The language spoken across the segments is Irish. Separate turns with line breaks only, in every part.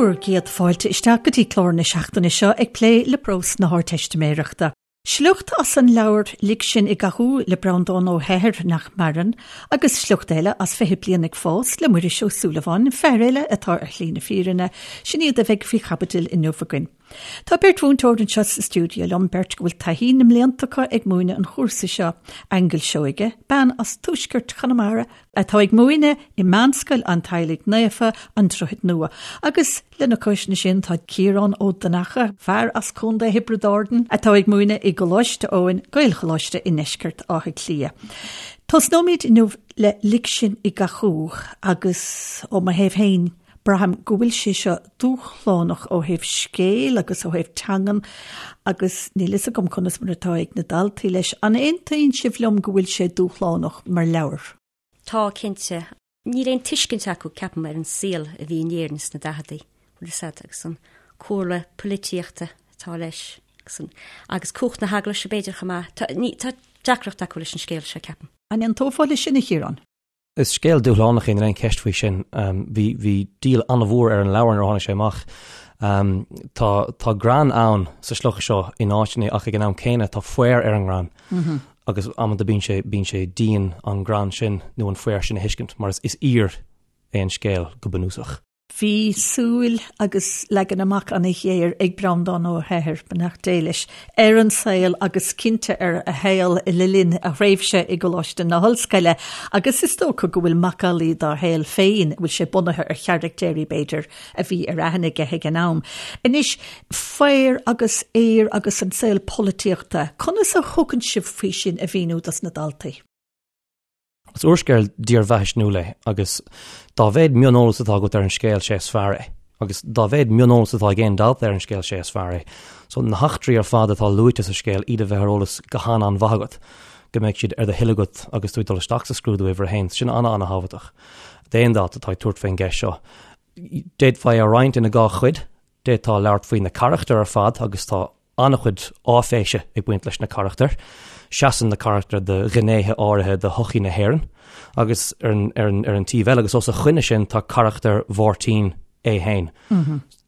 Bhur gcéad fáilte isteach go dtí clár na seachtaine seo ag plé le prós na hArdteistiméireachta. Sliocht as an leabhar Lig Sinn i gCathú le Breandán Ó hEithir, nach maireann, agus sliocht eile as 20 Bliain ag Fás le Muiris Ó Súilleabháin, fear eile atá ar shlí na fírinne, sin iad a bheidh faoi chaibidil inniu againn. Tá beirt mhúinteoir anseo sa stiúideo liom, beirt go bhfuil taithí na mblianta acu ag múineadh an chúrsa seo, Aingeal Seoige, bean as tuaisceart Chonamara, atá ag múineadh i Meánscoil an Teaghlaigh Naofa, An Droichead Nua, agus lena chois sin tá Ciarán Ó Donnacha, fear as Contae Thiobraid Árann, atá ag múineadh i gColáiste Eoin, Gaelcholáiste i ndeisceart Átha Cliath. Tosnóimid inniu le Lig Sinn i gCathú agus ó mo thaobh féin, Braithim go bhfuil sé seo dúshlánach ó thaobh scéil agus ó thaobh teangan agus níl fhios agam conas mar atá ag na daltaí leis. An aontaíonn sibh liom go bhfuil sé dúshlánach mar leabhar?
Tá, cinnte. Níl aon tuiscint acu, ceapaim, ar an saol a bhí in Éirinn sna daicheadaí, bhfuil fhios a'd, agus an cúlra polaitíochta atá leis agus an, agus cumhacht na heaglaise b'fhéidir chomh maith. Tá, ní, tá deacracht acu leis an scéal seo, ceapaim.
An aontófá leis sin, a Chiaráin?
Is scéal dúshlánach é, níl aon cheist faoi sin. Bhí, bhí díol an-mhór ar an leabhar nuair a tháinig sé amach. Tá, tá greann ann sa sliocht seo in áiteanna ach ag an am céanna tá faobhar ar an ngreann. Agus amanta bíonn sé, bíonn sé dian an greann sin nó an faobhar sin a thuiscint mar is, is aoir é an scéal go bunúsach.
Bhí súil agus leagan amach an-ghéar ag Breandán Ó hEithir, beannacht Dé leis, ar an saol agus cinnte ar a shaol le linn a thréimhse i gColáiste na hOllscoile agus is dócha go bhfuil macallaí dá shaol féin, bhfuil sé bunaithe ar charactéirí b'fhéidir a bhí ar aithne aige ag an am. Anois, faobhar agus aoir agus an saol polaitíochta, conas a thugann sibh faoi sin a mhíniú dos na daltaí?
Is úrscéal dírbheathaisnéisiúil é agus dá mhéad mioneolas atá agat ar an scéal, sé is fearr é. Agus dá mhéad mioneolas atá ag aon dalta ar an scéal, sé is fearr é. So na heachtraí ar fad atá luaite sa scéal, iad a bheith ar eolas go han-an-mhaith agat, go mbeidh siad ar do thoil agat agus tú ag dul isteach sa scrúdú uimhir a haon. Sin an-an-thábhachtach d'aon dalta atá ag tabhairt faoin gceist seo. D'fhéadfá é a roinnt ina dhá chuid. D'fhéadfá labhairt faoi na carachtair ar fad agus tá an-chuid áiféise ag baint leis na carachtair. Seasann na carachtair do ghnéithe áirithe de shochaí na hÉireann agus ar an, ar an, ar an taobh eile agus os a choinne sin tá carachtar Mháirtín é féin.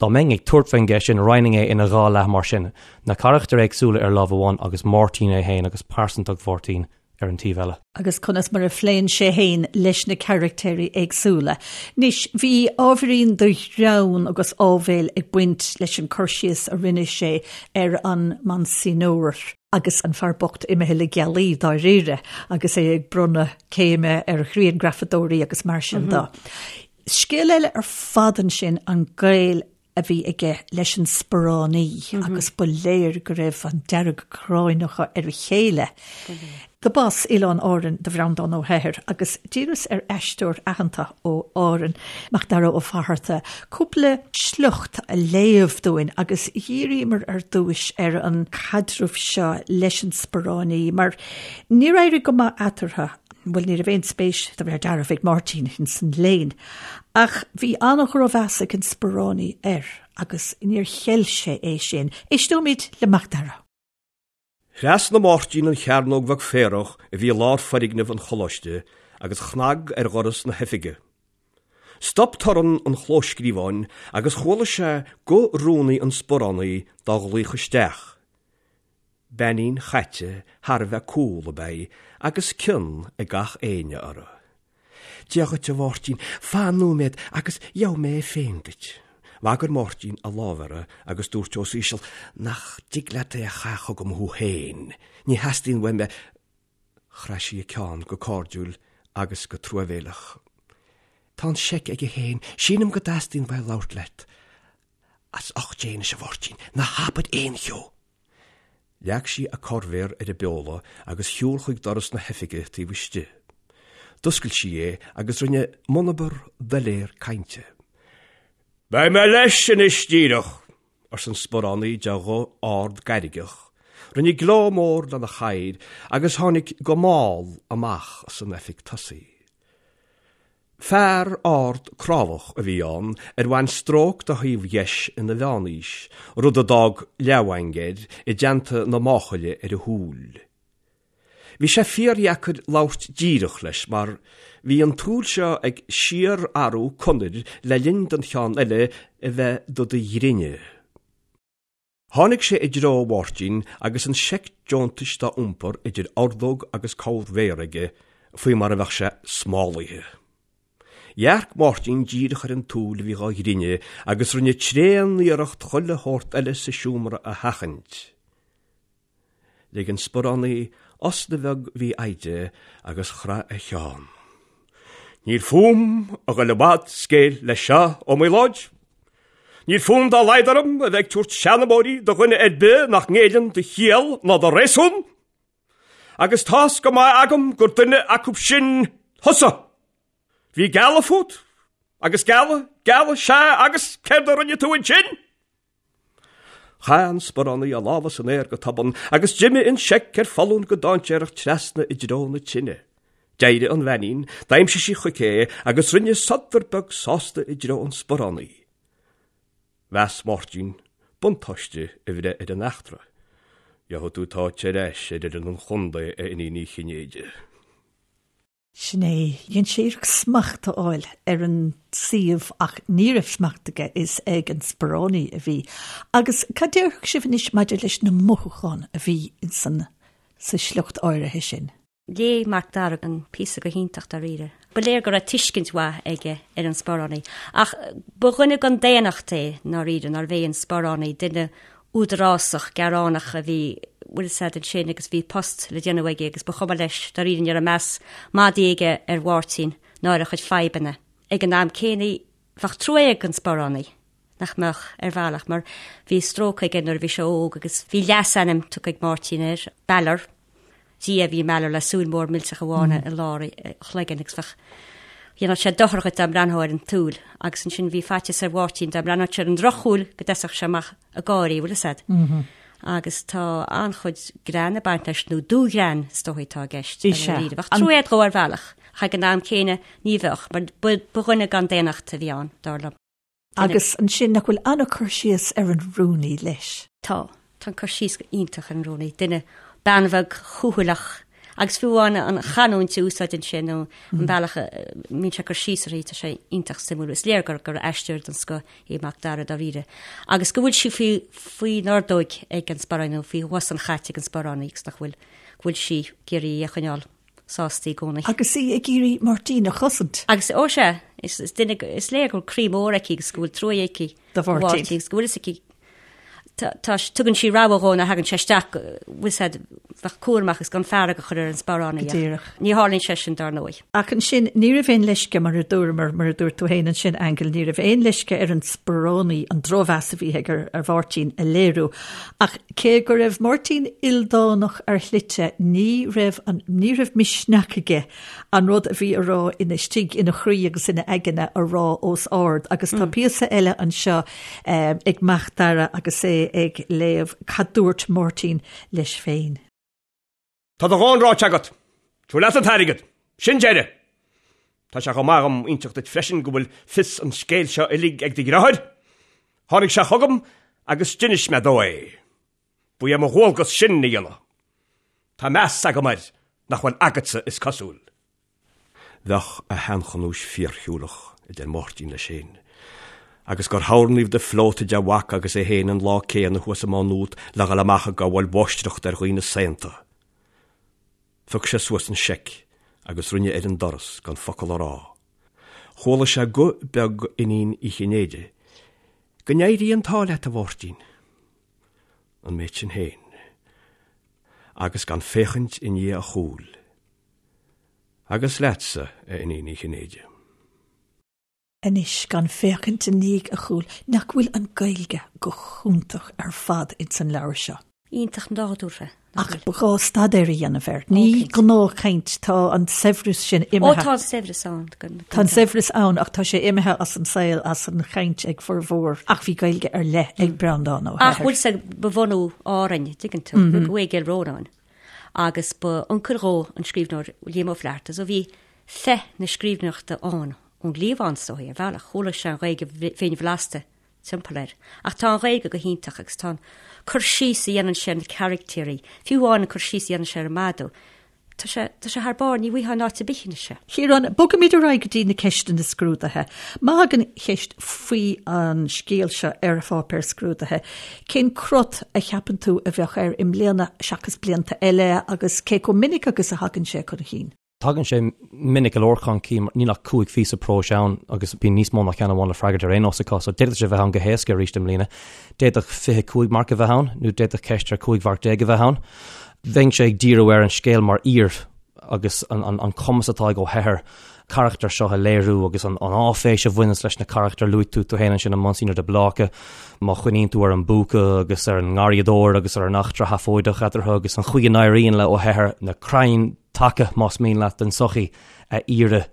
Dá mbeinn ag tabhairt faoin gceist sin, roinnfinn é ina dhá leath mar sin, na carachtair éagsúla ar lámh amháin agus Máirtín é féin agus pearsantacht Mháirtín ar an taobh eile.
agus conas mar a phléann sé féin leis na carachtéirí éagsúla. Anois, bhí ábhairín de ghreann agus áibhéil ag baint leis an cur síos a rinne sé ar an Monsignor, agus an fear bocht imithe le gealaí dáiríre agus é ag bronnadh céime ar ghrianghrafadóirí agus mar sin de. Scéal eile ar fad ansin an gaol a bhí aige leis an sparánaí agus ba léir go raibh an dearg-ghráin acu ar a chéile. Do b'as Oileáin Árann do Bhreandán Ó hEithir agus d'iarras ar aisteoir aitheanta ó Árainn, Macdara Ó Fatharta, cúpla sliocht a léamh dúinn agus dhíríomar ar dtúis ar an chaidreamh seo leis an sparánaí mar níor éirigh go maith eatarthu. Bhuel, ní raibh aon spéis de réir dealraimh ag Máirtín ins an léann, ach bhí an-dhrochmheas ag an sparánaí air agus níor cheil sé é sin. Éisteoimid le Macdara.
Thrasnaigh Máirtín an chearnóg bheag féarach a bhí i lár foirgneamh an choláiste agus chnag ar dhoras na hoifige. Stop torann an chlóscríobháin agus chuala sé guth rúnaí an sparánaí dá ghlaoch isteach. Beainín chaite thar a bheith cool ab ea í agus cion ag gach éinne uirthi. Dia dhuit, a Mháirtín, fan nóiméad agus gheobhaidh mé é féin duit. Bhagair Máirtín a lámh uirthi agus dúirt os íseal, Nach dtig leat é a chaitheamh chugam thú féin? Ní theastaíonn uaim é. Chraith sí a ceann go cairdiúil agus go truamhéileach. Tá an seic aige féin, sílim go dteastaíonn uaidh labhairt leat. As ucht Dé anois, a Mháirtín, ná habair aon cheo! Leag sí a corrmhéar ar an bpeola agus shiúil chuig doras na hoifige taobh istigh. D'oscail sí é agus rinne monabhar doiléir cainte. Beidh mé leis anois díreach! arsa an sparánaí de ghuth ard gairgeach. Rinne gleo mór lena chathaoir agus tháinig go mall amach as an oifig tosaigh. Fear ard crábhach a bhí ann ar bhain stróc dá thaobh dheis ina mheánaois, rud a d'fhág leathmhaing air i dteannta na máchaile ar a shúil. Bhí sé fíordheacair labhairt díreach leis mar bhí an tsúil seo ag síorathrú conair le linn don cheann eile a bheith do do ghrinneadh. Tháinig sé i dtreo Mháirtín agus an seic deontais dá iompar idir ordóg agus corrmhéar aige faoi mar a bheadh sé smálaithe. Dhearc Máirtín díreach ar an tsúil a bhí dhá ghrinneadh agus rinne tréan-iarracht chuile shórt eile sa seomra a sheachaint. Lig an sparánaí osna bheag mhífhoighdeach agus chraith a cheann. Níl fúm a ghoil i bhfad scéil leis seo, Ó Maoláid. Níl fonn dá laghad orm a bheith ag tabhairt seanmóirí do dhuine ar bith nach ngéilleann do chiall ná do réasún. Agus tá's go maith agam gur duine acu sin thusa! Bhí gealladh fút, agus gealladh, gealladh, sea, agus céard a rinne tú ansin? Chaith an sparánaí a lámha san aer go tobann agus d'imigh an seic ar foluain go dainséarach trasna i dtreo na tine. D'éirigh an bheainín, d'aimsigh sí chuici é agus rinne sodar beag sásta i dtreo an sparánaí. Mheas Máirtín buntáiste a bhreith ar an eachtra. Gheobhaidh tú t'áit ar ais ar fhoireann an chontae, a Iníon Uí Chinnéide.
Sin é. Dhein sé iarracht smacht a fháil ar an suíomh ach ní raibh smacht aige, is ag an sparánaí a bhí. Agus cad déarfadh sibh anois maidir leis na mothúcháin a bhí insan, sa sliocht áirithe sin?
Léigh Mac Dara an píosa go hiontach dáiríre. Ba léir go raibh tuiscint mhaith aige ar an sparánaí. Ach ba dhuine gan daonnacht é, ndáiríre, nárbh é an sparánaí, duine údarásach, gearánach a bhí, bhfuil fhios a'd ansin agus bhí post le déanamh aige agus ba chuma leis, dáiríre ní raibh meas madaidh aige ar Mháirtín ná ar a chuid fadhbanna. Ag an am céanna bheadh trua ag an sparánaí, nach mbeadh, ar bhealach, mar bhí stróc aige nuair a bhí sé óg agus bhí leasainm tugtha ag Máirtín air, Balor. Dia a bhí i mBalor le súil mhór millteach amháin i lár a chloiginn agus bheadh, dhéanfadh sé dochar dhuit dá mbreathnófá ar an tsúil agus ansin bhí faitíos ar Mháirtín dá mbreathnódh sé ar an drochshúil go dtoiseodh sé amach ag gáirí, bhfuil fhios a'd. Agus tá an-chuid greann ag baint leis, nó dúghreann is dóigh atá i gceist.
Is ea.
Bheadh trua a'd dhó ar bhealach, ach ag an am céanna ní bheadh, mar ba dhuine gan daonnacht a bhí ann, dar liom.
Agus ansin, nach bhfuil an-cur síos ar an rúnaí leis?
Tá. Tá an cur síos iontach ar an rúnaí. Duine, bean bheag chúthaileach agus fiú amháin an chanúint a úsáideann sé nó an bealach a mbíonn sé ag cur síos uirthi, tá sé iontach suimiúil. Is léir gur gur aisteoir den scoth é Mac Dara dáiríre. Agus go bhfuil sí faoi faoin ordóig ag an sparánaí nó faoi bhos an chait ag an sparánaí agus nach bhfuil go bhfuil sí ag iarraidh í a choinneáil. sásta i gcónaí.
Agus í ag iarraidh Máirtín a chosaint.
Agus, ó sea, is, is duine, is léir go bhfuil croí mór aici agus go bhfuil trua aici
do Mháirtín.
Agus go bhfuil fhios aici, tá, tá, tugann sí rabhadh dhó nuair a thagann sé isteach, bhfuil fhios a'd, bheith cúramach agus gan fearg a chur ar an sparánaí.
Go díreach.
Ní tharlaíonn sé sin dar ndóigh.
Ach ansin, ní raibh aon leisce, mar a dúramar, mar a dúirt tú féin ansin, Aingeal, ní raibh aon leisce ar an sparánaí an drochmheas a bhí aige ar, ar Mháirtín a léiriú. Ach cé go raibh Máirtín ildánach ar shlite, ní raibh an, ní raibh misneach aige an rud a bhí a rá ina istigh ina chroí agus ina aigne a rá os ard. Agus tá píosa eile anseo ag Mac Dara agus é ag léamh cad dúirt Máirtín leis féin.
Tá do dhóthain ráite agat. Tabhair leat an t-airgead. Sin deireadh. Tá sé chomh maith agam inseacht duit freisin go bhfuil fios an scéil seo uilig ag do dheartháir. Tháinig sé chugam agus d'inis mé dó é. Ba é mo dhualgas sin a dhéanamh. Tá meas agam air nach bhfuil agatsa is cosúil. Bheadh a sheanchanúis fíorshiúlach, a deir Máirtín leis féin, agus gur tharrnaíodh de phleota de mhac agus é féin an lá céanna thuas i Má Nuat le dhul amach ag gabháil mháistreachta ar dhaoine saonta. Phioc sé suas an seic agus rinne ar an doras gan focal a rá. Chuala sé guth beag Iníon Uí Chinnéide, Go n-éirí an t-ádh leat, a Mháirtín. An méid sin féin. Agus gan féachaint i ndiaidh a chúil. Agus leatsa, a Iníon Uí Chinnéide.
Anois, gan féachaint i ndiaidh a chúil, nach bhfuil an Ghaeilge go hiontach ar fad ins an leabhar seo?
Iontach nádúrtha,
nach bhfuil? Ach ba ghá staidéar a dhéanamh air. Ní gnáthchaint, tá an saibhreas sin imithe.
Ó, tá an saibhreas ann.
Tá an saibhreas ann ach tá sé imithe as an saol, as an chaint ag formhór. Ach bhí Gaeilge ar leith ag Breandán Ó
hEithir. Ach bhfuil sé, ba bhunú Árainn, dtuigeann tú, rugadh é i gCill Rónáin agus ba uncail dhó an scríbhneoir Liam Ó Flaithearta so bhí féith na scríbhneoireachta ann ón gcliabhán is dóigh, ar bhealach. Chuala sé an Ghaeilge bhinn bhlasta timpeall air. Ach tá an Ghaeilge go hiontach agus tá an cur síos a dhéanann sé ar na caractéirí, fiú amháin an cur síos a dhéanann sé ar an madadh. Tá sé, tá sé thar barr, ní bhfaighfeá in áit ar bith anois
é. Ciarán, bogfaimid ar aghaidh go dtí na ceisteanna scrúdaithe. Má thagann ceist faoi an scéal seo ar pháipéar scrúdaithe, cén crot a cheapann tú a bheadh air i mbliana seachas blianta eile agus cé chomh minic agus a thagann sé chun
chinn? Tagann sé minic go leor chun cinn, níl ach 5 phíosa próis ann agus bíonn níos mó ná ceann amháin le freagairt ar aon nós acu, so d'fhéadfadh sé a bheith ann go héasca arís i mbliana. D'fhéadfadh 25 marc a bheith ann nó d'fhéadfadh ceist ar 15 mharc a bheith ann. Bheinnse ag díriú ar an scéal mar fhíor agus an cumas atá ag Ó hEithir carachtair seo a léiriú agus an áiféis a bhaineanns leis na carachtair. Luaigh tú tú féin ansin an Monsignor de Bláca, má chuimhníonn tú ar an bpúca agus ar an ngarraíodóir agus ar an eachtra sheafóideach eatarthu agus an chaoi a n-éiríonn le Ó hEithir na crainn taca, más mian leat, den tsochaí a fhíoradh.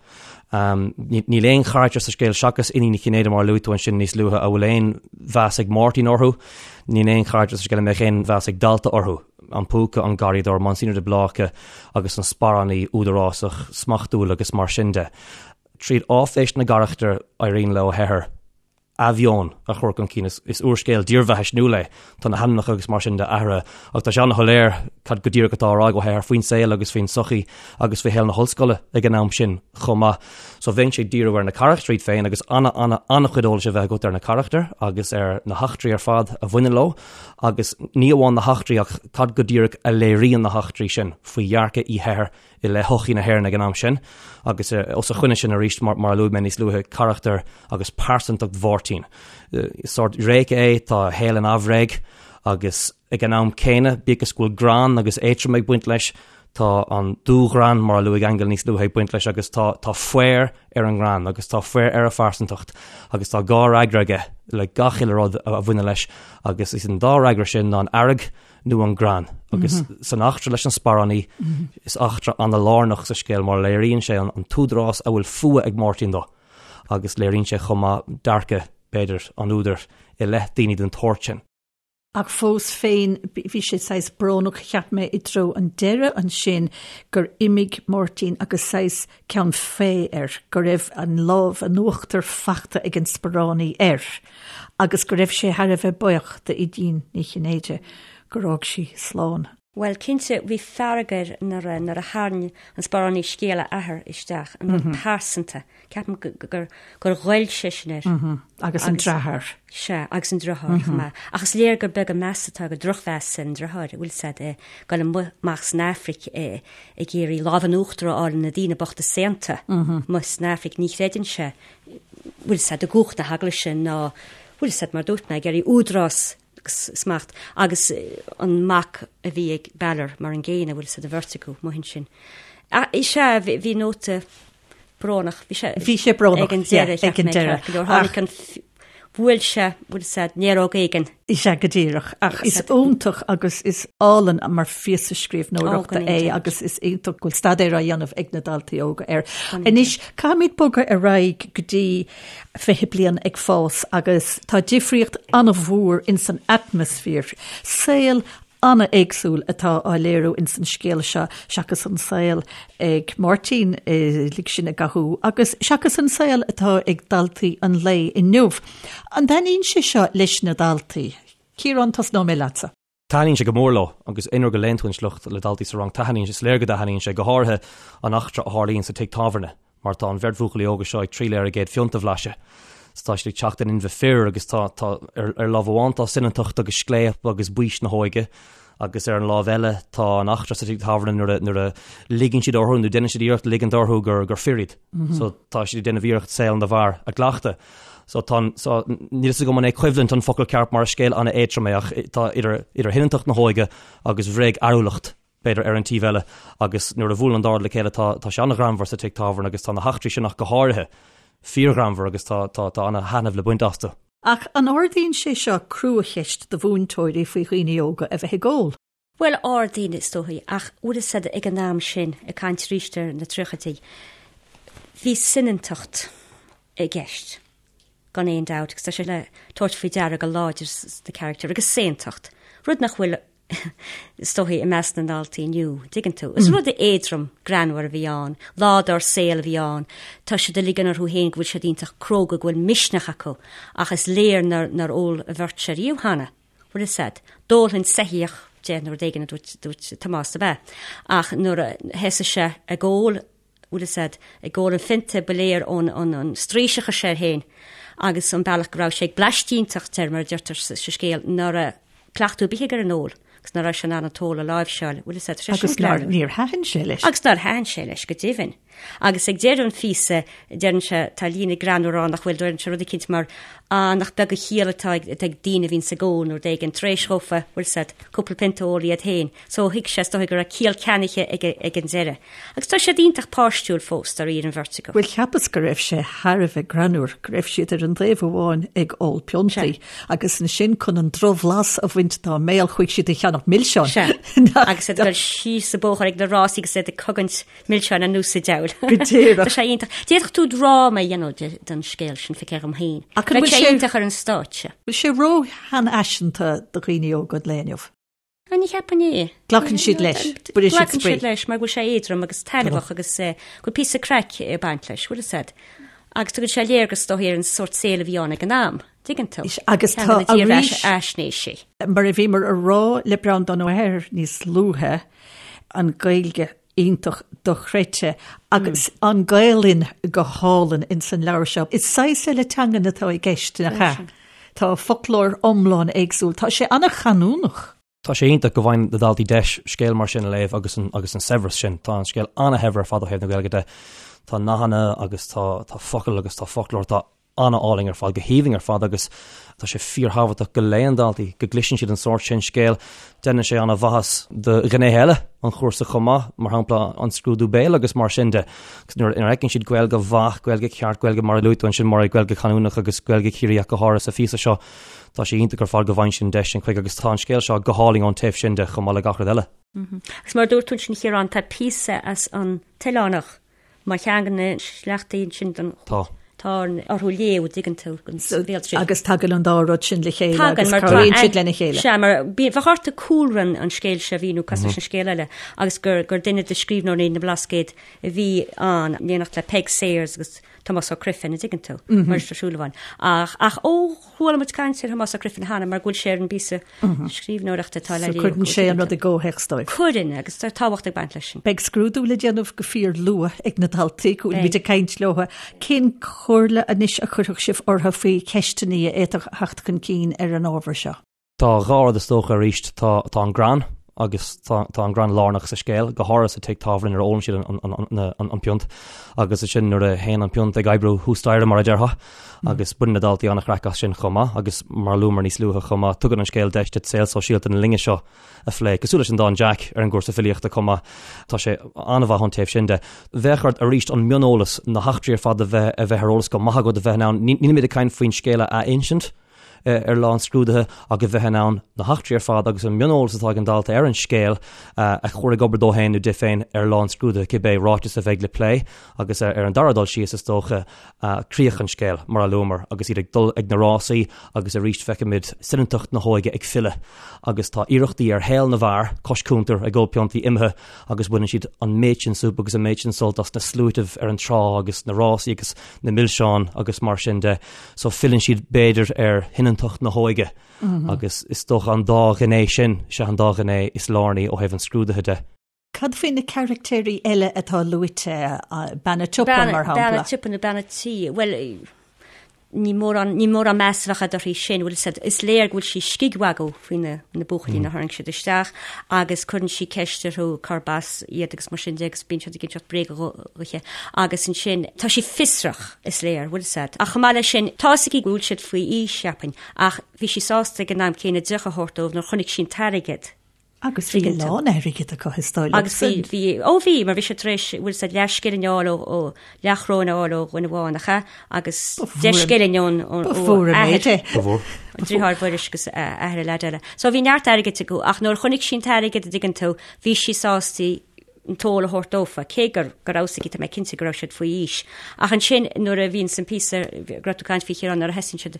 Níl aon charachtar sa scéal seachas Iníon Uí Chinnéide, mar a luaigh tú ansin níos luaithe, a bhfuil aon mheas ag Máirtín orthu. Níl aon charachtar sa scéal a mbeadh aon mheas ag dalta orthu. An Púca, an Garraíodóir, Monsignor de Bláca agus an sparánaí údarásach, smachtúil agus mar sin de. Tríd áiféis na gcarachtar, éiríonn le Ó hEithir athmheon a chur chun cinn. Is úrscéal dírbheathaisniúil é. Tá na hainmneacha agus mar sin de athraithe ach tá sé an-shoiléir cad go díreach atá á rá ag Ó hEithir faoin saol agus faoin tsochaí agus faoi shaol na hollscoile ag an am sin chomh maith. So bheinnse ag díriú ar na carachtair iad féin agus ana, ana, an-chuid eolais a bheith agat ar na carachtair agus ar na heachtraí ar fad a bhaineann leo agus ní amháin na heachtraí ach cad go díreach a léiríonn na heachtraí sin faoi dhearcadh Uí hEithir i leith shochaí na hÉireann ag an am sin agus os a choinne sin arís, mar a luaigh mé níos luaithe, carachtar agus pearsantacht Mháirtín. Sórt réice é, tá a shaol in aimhréidh agus ag an am céanna, bíodh is go bhfuil greann agus éadrom ag baint leis, tá an dúghreann, mar a luaigh Aingeal níos luaithe, ag baint leis agus tá tá faobhar ar an ngreann agus tá faobhar ar a phearsantacht agus tá dhá fhreagra aige le gach uile rud a bhaineann leis agus is an dá fhreagra sin ná an fhearg nó an greann. Agus san eachtra leis an sparánaí, is eachtra ana-lárnach sa scéal mar léiríonn sé an t-údarás a bhfuil fuath ag Máirtín dó agus léiríonn sé chomh maith dearcadh, b'fhéidir, an údair i leith daoine den tsórt sin.
Ach fós féin, bhí sé saghas brónach, cheap mé, i dtreo an deireadh ansin gur imigh Máirtín agus saghas ceann fé air, go raibh an lámh in uachtar fachta ag an sparánaí air agus go raibh sé thar a bheith buíoch d'Aoidín Ní Chinnéide gur fhág sí slán.
Bhuel, cinnte, bhí fearg air nuair a, nuair a tharraing an sparánaí scéal a athar isteach, an rud pearsanta. Ceapaim gur, gur ghoill sé sin air.
Agus an deartháir.
Sea, agus an deartháir chomh maith. Ach is léir gur beag an meas atá aige, drochmheas ar an deartháir, a bhfuil 's a'd, ag dul amuigh amach san Afraic ag iarraidh lámh in uachtar a fháil ar na daoine bochta saonta amuigh san Afraic. Ní chreideann sé, bhfuil 's a'd, i gcumhacht na heaglaise ná, bhfuil 's a'd, mar dúirt mé, ag iarraidh údarás agus smacht agus an mac a bhí ag Balor mar an gcéanna, bhfuil 's a'd, an bheirt acu amuigh ansin. Is ea, bhí nóta brónach,
bhí sé Bhí sé brónach, ag
an deireadh, ag an deireadh. Go leor tháinig an bhuail sé, bhfuil 's a'd, néaróg éigin.
Is ea go díreach, ach is iontach agus is álainn mar phíosa scríbhneoireachta é agus is iontach go bhfuil staidéar á dhéanamh ag na daltaí óga air. Anois, caithfimid bogadh ar aghaidh go dtí 20 bliain ag fás agus tá difríocht an-mhór ins an atmaisféar. Saol an-éagsúil atá á léiriú ins an scéal seo seachas an saol ag Máirtín lig sinn i gcathú agus seachas an saol atá ag daltaí an lae inniu. An dtaitníonn sé seo leis na daltaí? Ciarán, tosnóidh mé leatsa.
Taitníonn sé go mór leo agus aon uair go léann tú an sliocht le daltaí sa rang, taitníonn sé, is léir go dtaitníonn sé, go háirithe an eachtra a tharlaíonn sa tigh tábhairne mar tá an bheirt bhuachaillí óga seo ag triall ar a gcéad phionta a bhlaiseadh. So tá siad ag teacht in inmhe fir agus tá, tá, ar, ar lámh amháin tá soineantacht agus scléip agus baois na hóige agus ar an lámh eile tá an eachtra sa tigh tábhairne nuair a, nuair a ligeann siad orthu nó déanann siad iarracht ligint orthu gur, gur fir iad. So tá siad ag déanamh iarracht saol na bhfear a gcleachtadh. So tá an, so níl fhios agam an é coimhlint an focal ceart mar is scéal an-éadrom é ach tá idir, idir shoineantacht na hóige agus bhréagfhearúlacht, b'fhéidir, ar an taobh eile agus nuair a bhuaileann an dá rud le chéile tá, tá sé an-ghreannmhar sa tigh tábhairne agus tá na heachtraí sin ach go háirithe fíorghreannmhar agus tá, tá, tá an-thaitneamh le baint astu.
Ach an ardaíonn sé seo cruacheist do mhúinteoirí faoi dhaoine óga a bheith ag ól?
Bhuel, ardaíonn, is dóigh, ach bhfuil fhios a'd ag an am sin, ag caint arís ar na tríochaidí, bhí soineantacht i gceist, gan aon dabht, agus tá sé le tabhairt faoi deara go láidir sna carachtair, agus saontacht, rud nach bhfuil, is dóigh, i measc na ndaltaí inniu, dtuigeann tú. Is rud éadrom, greannmhar a bhí ann, lá dár saol a bhí ann, tá siad ag ligean orthu féin go bhfuil siad iontach cróga, go bhfuil misneach acu, ach is léir nár, nár ól an bheirt seo riamh cheana. Bhfuil fhios a'd. D'ólfainn soitheach. de nó rud éigin a dúirt, dúirt Tomás, ab ea? Ach nuair a thosaigh sé ag ól, bhfuil fhios a'd, ag ól an phionta ba léir ón an straois a chuir sé air féin agus an bealach go raibh sé ag bleaistínteacht air, mar a deirtear sa scéal, ná raibh cleachtadh ar bith aige ar an ól agus ná raibh sé in ann an t-ól a láimhseáil, bhfuil fhios a'd, tá sé
sin
greannmhar.
Agus níor thaitin sé leis.
Agus nár thaitin sé leis, go deimhin. Agus ag deireadh an phíosa, deireann sé, tá líne greannmhar ann nach bhfuil, deireann sé rud eicínt mar, Á, nach beag an chiall atá ag, ag daoine a bhíonns ag ól nó rud éigin, tar éis dhófa, bhfuil fhios a'd, cúpla pionta a ól iad féin. So thuig sé, is dóigh, go raibh ciall ceannaithe aige ag an deireadh. Agus tá siad iontach páistiúil fós, dáiríre, an bheirt acu.
Bhuel, cheapas go raibh sé thar a bheith greannmhar, go raibh siad ar an dtaobh amháin ag ól piontaí agus ansin chun an drochbhlas a bhaint dá mbéal chuaigh siad ag ceannach milseáin.
Sea. Agus iad ag dul síos an bóthar ag na rásaí agus iad ag cogaint milseáin anuas an diabhal.
Go díreach.
Tá sé iontach. D'fhéadfadh tú dráma a dhéanamh den scéal sin, feictear dhom féin.
Ach an
Bheadh
bhfuil
sé
sé
iontach ar an stáitse.
bhfuil sé ró-sheanfhaiseanta do dhaoine óga an lae inniu?
Ah, ní cheapaim é.
Glacann siad leis. Bhfuil siad
Glacann
spraoi.
siad leis mar go bhfuil sé éadrom agus taitneamhach agus eh, go bhfuil píosa craic ag baint leis, bhfuil fhios a'd. Agus tugann sé léargas is dóigh ar an sórt saoil a bhí ann ag an am, tuigeann tú.
Agus
Ceann
tá
de na
arís,
dírbheathaisnéisí.
mar a bhíomar a rá le Breandán Ó hEithir níos luaithe, an Ghaeilge iontach dochreidte agus an Ghaelainn go hálainn ins an leabhar seo. Is saghas eile teangan atá i gceist, nach ea? Tá foclóir iomlán éagsúil. Tá sé an-chanúnach.
Tá sé iontach go bhfaigheann na daltaí deis scéal mar sin a léamh agus an agus an saibhreas sin. Tá an scéal an-shaibhir ar fad ó thaobh na Gaeilge de. Tá nathanna agus tá tá focail agus tá foclóir atá an-álainn ar fad, go haoibhinn ar fad agus tá sé fíorthábhachtach go léann daltaí, go gcloiseann siad an sórt sin scéil. Déanann sé an-mhaitheas do ghnéithe eile an chúrsa chomh maith, mar shampla an scrúdú béil agus mar sin de. Agus nuair a fheiceann siad Gaeilge mhaith, Gaeilge cheart, Gaeilge mar a luaigh tú ansin, mar Gaeilge chanúnach agus Gaeilge Chiarraí ach go háirithe sa phíosa seo, tá sé iontach ar fad go bhfaigheann siad an deis sin chuige agus tá an scéal seo go hálainn ón taobh sin de chomh maith le gach rud eile.
Agus mar a dúirt tú ansin, a Chiaráin, tá píosa as an tOileánach Mar cheann de na sleachtaí ansin den
Tá.
tá orthu léamh, dtuigeann tú, den bhéaltriail.
Agus tagann an dá rud sin le chéile
Tagann,
agus
mar tá
cabhraíonn siad lena chéile.
Sea, mar bhí- bheadh ort cúlra an an scéil seo a mhíniú cosúil leis an scéal eile agus gur gur duine de scríbhneoirí na mBlascaod a bhí ann, in éineacht le Peig Sayers agus Tomás Ó Criomhthain, an dtuigeann tú, Muiris Ó Súilleabháin. Ach ach ó chuala muid caint ar Thomás Ó Criomhthain cheana mar go bhfuil sé ar an bpíosa scríbhneoireachta atá le
So cuireann sé an rud i gcomhthéacs dóibh.
Cuireann, agus tá tábhacht ag baint leis sin.
Beidh scrúdú le déanamh go fíor luath ag na daltaí, go bhfuil muid ag caint leo. Cén chomhairle anois a chuirfeadh sibh orthu faoi cheisteanna a fhéadfadh a theacht chun cinn ar an ábhar seo?
Tá dhá rud is dócha arís, tá tá an greann agus tá tá an greann lárnach sa scéal, go háirithe sa tigh tábhairne nuair a ólann siad an an an an an piont agus ansin nuair a théann an piont ag oibriú thuas staighre mar a déarfá agus baineann na daltaí an-chraic as sin chomh maith agus mar a luamar níos luaithe chomh maith, tugann an scéal deis duit saol sóisialta na linne seo a phlé, cosúil leis an dán Jack ar an gcúrsa filíochta chomh maith. Tá sé an-mhaith ón taobh sin de. Bheadh ort arís an mioneolas, na heachtraí ar fad a bheith a bheith ar eolas go maith agat a bheith in ann, nílimid ag caint faoin scéal a insint, ar lá an scrúdaithe ach a bheith in ann na heachtraí ar fad agus an mioneolas atá ag an dalta ar an scéal a chur ag obair dó féin nó di féin ar lá an scrúdaithe, cibé ráiteas a bheidh le plé agus ar an dara dul síos, is dócha, críoch an scéil, mar a luamar, agus iad ag dul ag na rásaí agus arís feicimid soineantacht na hóige ag filleadh agus tá iarrachtaí ar shaol na bhfear cois cuntair ag ól piontaí imithe agus baineann siad an méid sin súp agus an méid sin sult as na sluaitibh ar an trá agus na rásaí agus na milseáin agus mar sin de. So filleann siad b'fhéidir ar shoineantacht na hóige agus is dócha an dá ghné sin, sea an dá ghné is lárnaí ó thaobh an scrúdaithe de.
Cad faoi na caractéirí eile atá luaite, bean a' tsiopa mar shampla?
Bean a' tsiopa nó bean a' tí, bhuel, ní mórán, ní mórán meas a bheadh agat uirthi sin, bhfuil fhios agat, is léir go bhfuil sí scigmhagadh faoi na, na buachaillí nuair a tharraing siad isteach agus cuireann sí ceist orthu cárb as iad agus mar sin de agus bíonn siad ag inseacht bréaga dhuithe agus ansin tá sí fiosrach, is léir, bhfuil fhios agat. Ach chomh maith leis sin, tá fhios aici go bhfuil siad faoi aois, cheapfainn, ach bhí sí sásta ag an am céanna deoch a thabhairt dóibh nuair chonaic sí an t-airgead.
Agus bhí a lán airgid acu is dóigh liom.
Agus bhí, bhí, ó bhí, mar bhí sé tar éis, bhfuil fhios agat, leathscilling a fháil ó, ó, leathchoróin a fháil ó dhuine amháin, nach ea? Agus deich scilling ón, ón,
Ba mhór an méid é.
Ba mhór.
An driotháir Mhuiris agus athair an leaid eile. So bhí neart airgid acu, ach nuair a chonaic sí an t-airgead, an dtuigeann tú, bhí sí sásta an t-ól a thabhairt dófa, cé gur, go raibh fhios aici, tá mé cinnte go raibh siad faoi aois. Ach ansin, nuair a bhíonns an píosa, go raibh tú ag caint faoi Chiarán, nuair a thosaíonn siad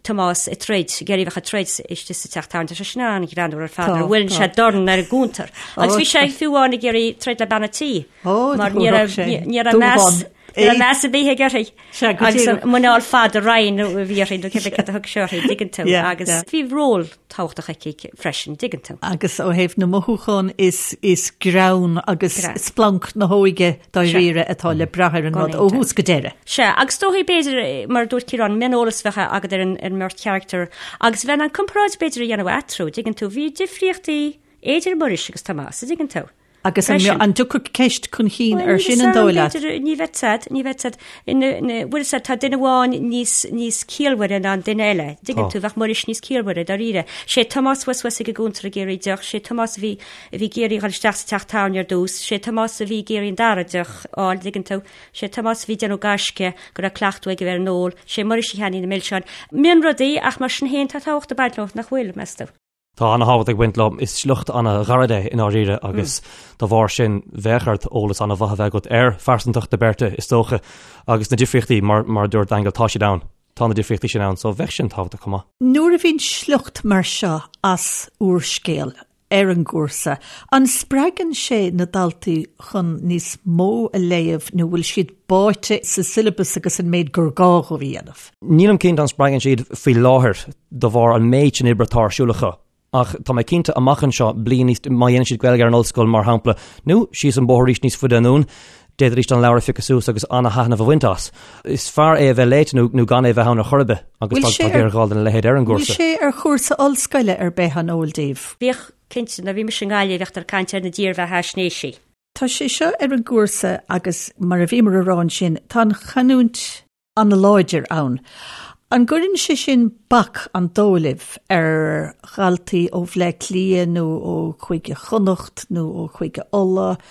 Tomás ag troid, ag iarraidh bheith ag troid istigh sa teach tábhairne, tá sé sin an-ghreannmhar ar fad, nuair a bhuaileann sé dorn ar an gcuntar. Agus bhí sé fiú amháin ag iarraidh troid le bean a' tí.
Ó,
Mar ní raibh, ní raibh meas, Ní raibh meas ar bith aige uirthi. Sea, go Agus an muineál fada righin a bhí uirthi nó cibé cad a thug sé uirthi, dtuigeann tú. Agus bhí ról tábhachtach aici freisin, dtuigeann tú.
Agus ó thaobh na mothúchán is is greann agus splanc na hóige dáiríre atá le brath ar an rud ó thús go deireadh.
Sea, agus dóigh b'fhéidir, mar a dúirt Ciarán, mioneolas bheadh agat ar an ar an mbeirt charachtar agus bheith in ann comparáid b'fhéidir a dhéanamh eatarthu, dtuigeann tú, bhí difríochtaí idir Muiris agus Tomás, a dtuigeann tú.
Agus an dtiocfadh ceist chun cinn ar sin an dóigh leat?
Ní bheadh siad, ní bheadh siad. Bhfuil a fhios agat, tá duine amháin níos, níos ciallmhaire ná an duine eile. Dtuigeann tú, bheadh Muiris níos ciallmhaire, dáiríre. Sé Tomás thuas thuas ag an gcuntar ag iarraidh deoch, sé Tomás a bhí, a bhí ag iarraidh dhul isteach sa teach tábhairne ar dtús, sé Tomás a bhí ag iarraidh an dara deoch a fháil, dtuigeann tú. Sé Tomás a bhí ag déanamh gaisce go raibh cleachtadh aige ar an ól, sé Muiris a cheannaigh na milseáin. Mionrudaí, ach mar sin féin tá tábhacht ag baint leo, nach bhfuil, meas tú?
Tá ana-thábhacht ag baint leo. Is sliocht ana-ghairid é i ndáiríre agus dá bharr sin bheadh ort eolas ana-mhaith a bheith agat ar phearsantacht na beirte is dócha agus na difríochtaí mar mar a dúirt Aingeal tá siad ann. Tá na difríochtaí sin ann so bheadh sin tábhachtach chomh maith.
Nuair a bhíonn sliocht mar seo as úrscéal ar an gcúrsa, an spreagann sé na daltaí chun níos mó a léamh nó bhfuil siad báite sa siollabas agus an méid gur gá dhóibh a dhéanamh?
Nílim cinnte an spreagann siad faoi láthair de bharr an méid sin oibre atá ar siúl acu. Ach tá mé cinnte amach anseo, bliain níos, má dhéanann siad Gaeilge ar an ollscoil mar shampla, nó síos an bóthar arís níos faide anonn, d'fhéadfaidís an leabhar a phiocadh suas agus ana-thaitneamh a bhaint as. Is fearr é a bheith léite nó nó gan é a bheith ann ar chor ar bith agus tá tá géarghá lena leithéid ar an
gcúrsa. Bhfuil sé ar chúrsa ollscoile ar bith an eol daoibh?
Bhíodh, cinnte, nuair a bhí mise i nGaillimh bhíodh ag caint ar na dírbheathaisnéisí.
Tá sé seo ar an gcúrsa agus mar a bhíomar a rá ansin, tá an chanúint an-láidir ann. An gcuireann sé sin bac, an dóigh libh, ar dhaltaí ó Bhleá Cliath nó ó Chúige Chonnacht nó ó Chúige Uladh?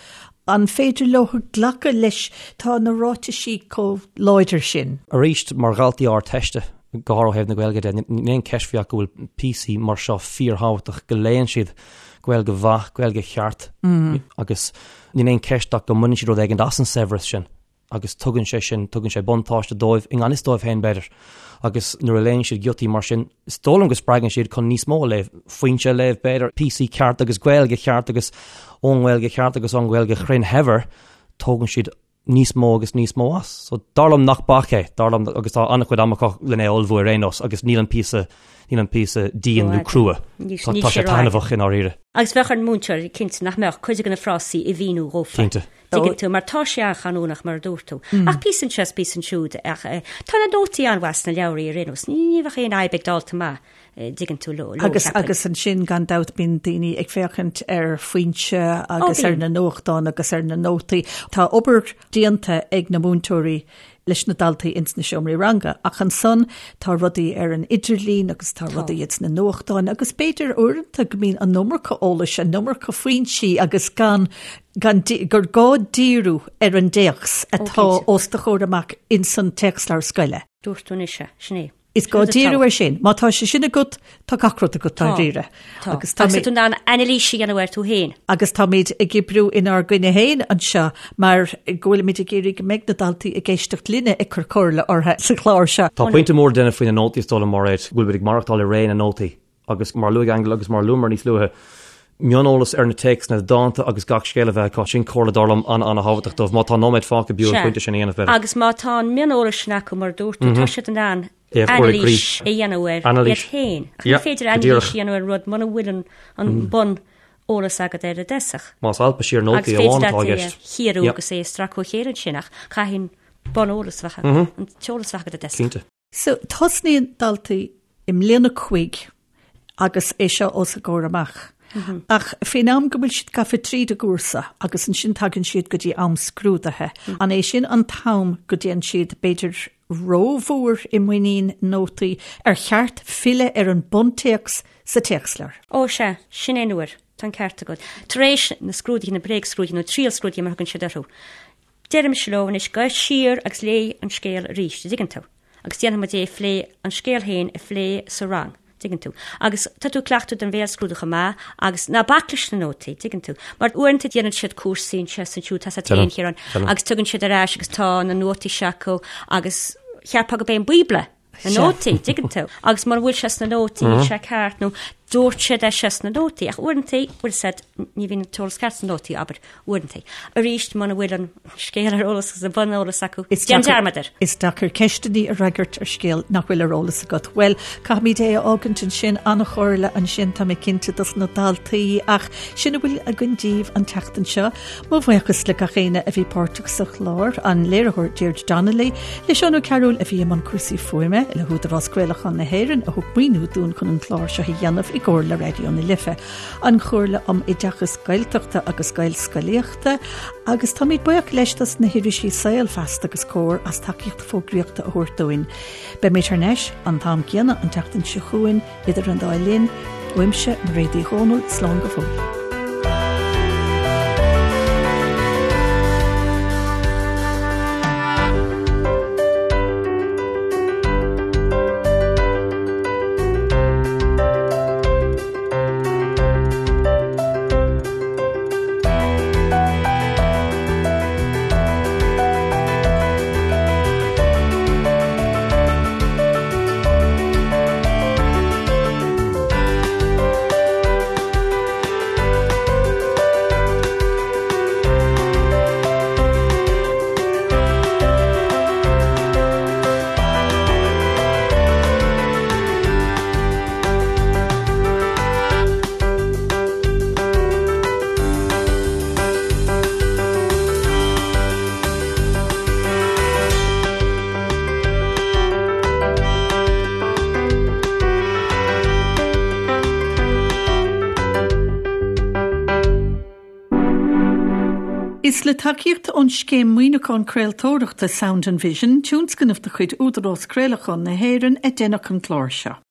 An féidir leo glacadh leis? Tá na ráitisí chomh láidir sin.
Arís, mar dhaltaí Ardteiste, go háirithe ó thaobh na Gaeilge de, níl aon cheist faoi ach go bhfuil píosaí mar seo fíorthábhachtach, go léann siad Gaeilge mhaith, Gaeilge cheart agus níl aon cheist ach go mbaineann siad rud éigin as an saibhreas sin. agus tugann sé sin, tugann sé buntáiste dóibh, i ngan fhios dóibh féin b'fhéidir. Agus nuair a léann siad giotaí mar sin, is dóigh liom go spreagann siad chun níos mó a léamh, Foinse a léamh b'fhéidir, píosaí ceart agus Gaeilge cheart agus ón nGaeilge cheart agus ón nGaeilge chruinn shaibhir, tógann siad níos mó agus níos mó as. So dar liom nach bac é, dar liom agus tá an-chuid ama acu lena ullmhú ar aon nós agus níl an píosa, níl an píosa dian nó crua. Tá sé taitneamhach i ndáiríre.
Agus bheadh ar an múinteoir, cinnte, nach mbeadh cuid de na frásaí a mhíniú dhófa.
Cinnte.
Tuigeann tú, mar tá sé an-chanúnach, mar a dúirt tú. Ach píosa anseo is píosa ansiúd. Ach tá na nótaí an-mhaith sna leabhraí ar aon nós. Ní bheadh aon fhadhb ag dalta maith, dtuigeann tú, leo,
Agus, agus ansin, gan dabht, bíonn daoine ag féachaint ar Foinse agus ar na nuachtáin agus ar na nótaí. Tá obair déanta ag na múinteoirí leis na daltaí ins na seomraí ranga. Ach ansan tá rudaí ar an idirlíon agus tá rudaí ins na nuachtáin agus b'fhéidir uaireanta go mbíonn an iomarca eolais, an iomarca foinsí agus gan, gan, gur gá díriú ar an dtéacs atá os do chomhair amach ins an téacsleabhar scoile.
Dúirt tú anois é, sin é.
Is gá díriú air sin. Má tá sé sin agat, tá gach rud agat dáiríre.
Tá. Agus tá tú in ann anailís a dhéanamh air tú féin.
Agus táimid ag oibriú inár gcoinne féin anseo mar go bhfuilimid ag iarraidh go mbeidh na daltaí ag éisteacht linne ag cur comhairle orthu sa chlár seo.
Tá pointe mór le déanamh faoi na nótaí is dóigh liom, Mairéad, go bhfuil muid ag maireachtáil i ré na nótaí. Agus mar a luaigh Aingeal agus mar a luamar níos luaithe, mioneolas ar na téacsanna, na dánta agus gach scéal a bheith acu, sin comhairle dar liom an-an-thábhachtach dóibh. Má tá nóiméad fágtha, b'fhiú an pointe sin a dhéanamh,
b'fhéidir. Agus má tá an mioneolas sin acu, mar a dúirt tú, tá siad in ann anailís a dhéanamh air iad féin. Ach ní féidir anailís a dhéanamh ar rud muna bhfuil an bun eolas agat air i dtosach.
Más alpadh siar nótaí amháin atá i gceist.
Agus féidir leat é a chíoradh agus é a stracadh ó chéile ansin ach caithfidh an bun eolas a bheith agat, an t-eolas a bheith agat i dtosach.
Cinnte.
So, tosnaíonn daltaí i mbliain a cúig agus é seo os a gcomhair amach. Ach faoin am go bhfuil siad gafa tríd an gcúrsa agus ansin tagann siad go dtí am scrúdaithe, an é sin an t-am go dtéann siad b'fhéidir rómhór i muinín nótaí, ar cheart filleadh ar an buntéacs sa téacsleabhar?
Ó sea, sin é an uair. Tá an ceart agat. Tar éis na scrúduithe, na bréagscrúduithe nó triailscrúduithe mar a thugann siad orthu, Deirimse leo anois, gabh siar agus léigh an scéal arís, an dtuigeann tú? Agus déanfaidh muid é a phlé, an scéal féin a phlé sa rang, an dtuigeann tú? Agus tá tú ag cleachtadh don bhéalscrúdú chomh maith agus ná bac leis na nótaí, an dtuigeann tú? Mar uaireanta déanann siad cúrsaí anseo is ansiúd, tá a fhios agat féin, a Chiaráin, agus tugann siad ar ais agus tá na nótaí seo acu agus cheapfá gurb é an Bíobla na nótaí, an dtuigeann tú? Agus mura bhfuil sé sna nótaí, níl sé ceart nó. Dúirt siad é seo sna nótaí, ach uaireanta, bhfuil 'fhios a'd, ní bhíonn an t-eolas ceart sna nótaí, abair, uaireanta. Arís, muna bhfuil an scéal ar eolas agus an buneolas acu, déan dearmad air.
Is deacair ceisteanna a fhreagairt ar scéal nach bhfuil ar eolas agat. Bhuel, caithfimid é a fhágaint ansin, an-chomhairle ansin, tá mé cinnte, dos na daltaí, ach sin a bhfuil againn daoibh an tseachtain seo. Mo bhuíochas le gach éinne a bhí páirteach sa chlár, an léiritheoir Deirdre Donnelly, le Seán Ó Cearúil a bhí i mbun cúrsaí fuaime, le hÚdarás Craolacháin na hÉireann a thug maoiniú dúinn chun an clár seo a dhéanamh i gcomhar le Raidió na Life, an Chomhairle um Oideachas Gaeltachta agus Gaelscolaíochta, agus táimid buíoch leis dos na hirisí Saol, Feasta agus Comhar as tacaíocht fógraíochta a thabhairt dúinn. Beimid thar n-ais an t-am céanna an tseachtain seo chugainn. Idir an dá linn, uaimse, Mairéad Uí Dhomhnaill, slán go fóill. Is le tacaíocht ón Scéim Maoiniúcháin Craoltóireachta Sound and Vision, tionscnamh de chuid Údarás Craolacháin na hÉireann, a deineadh an clár seo.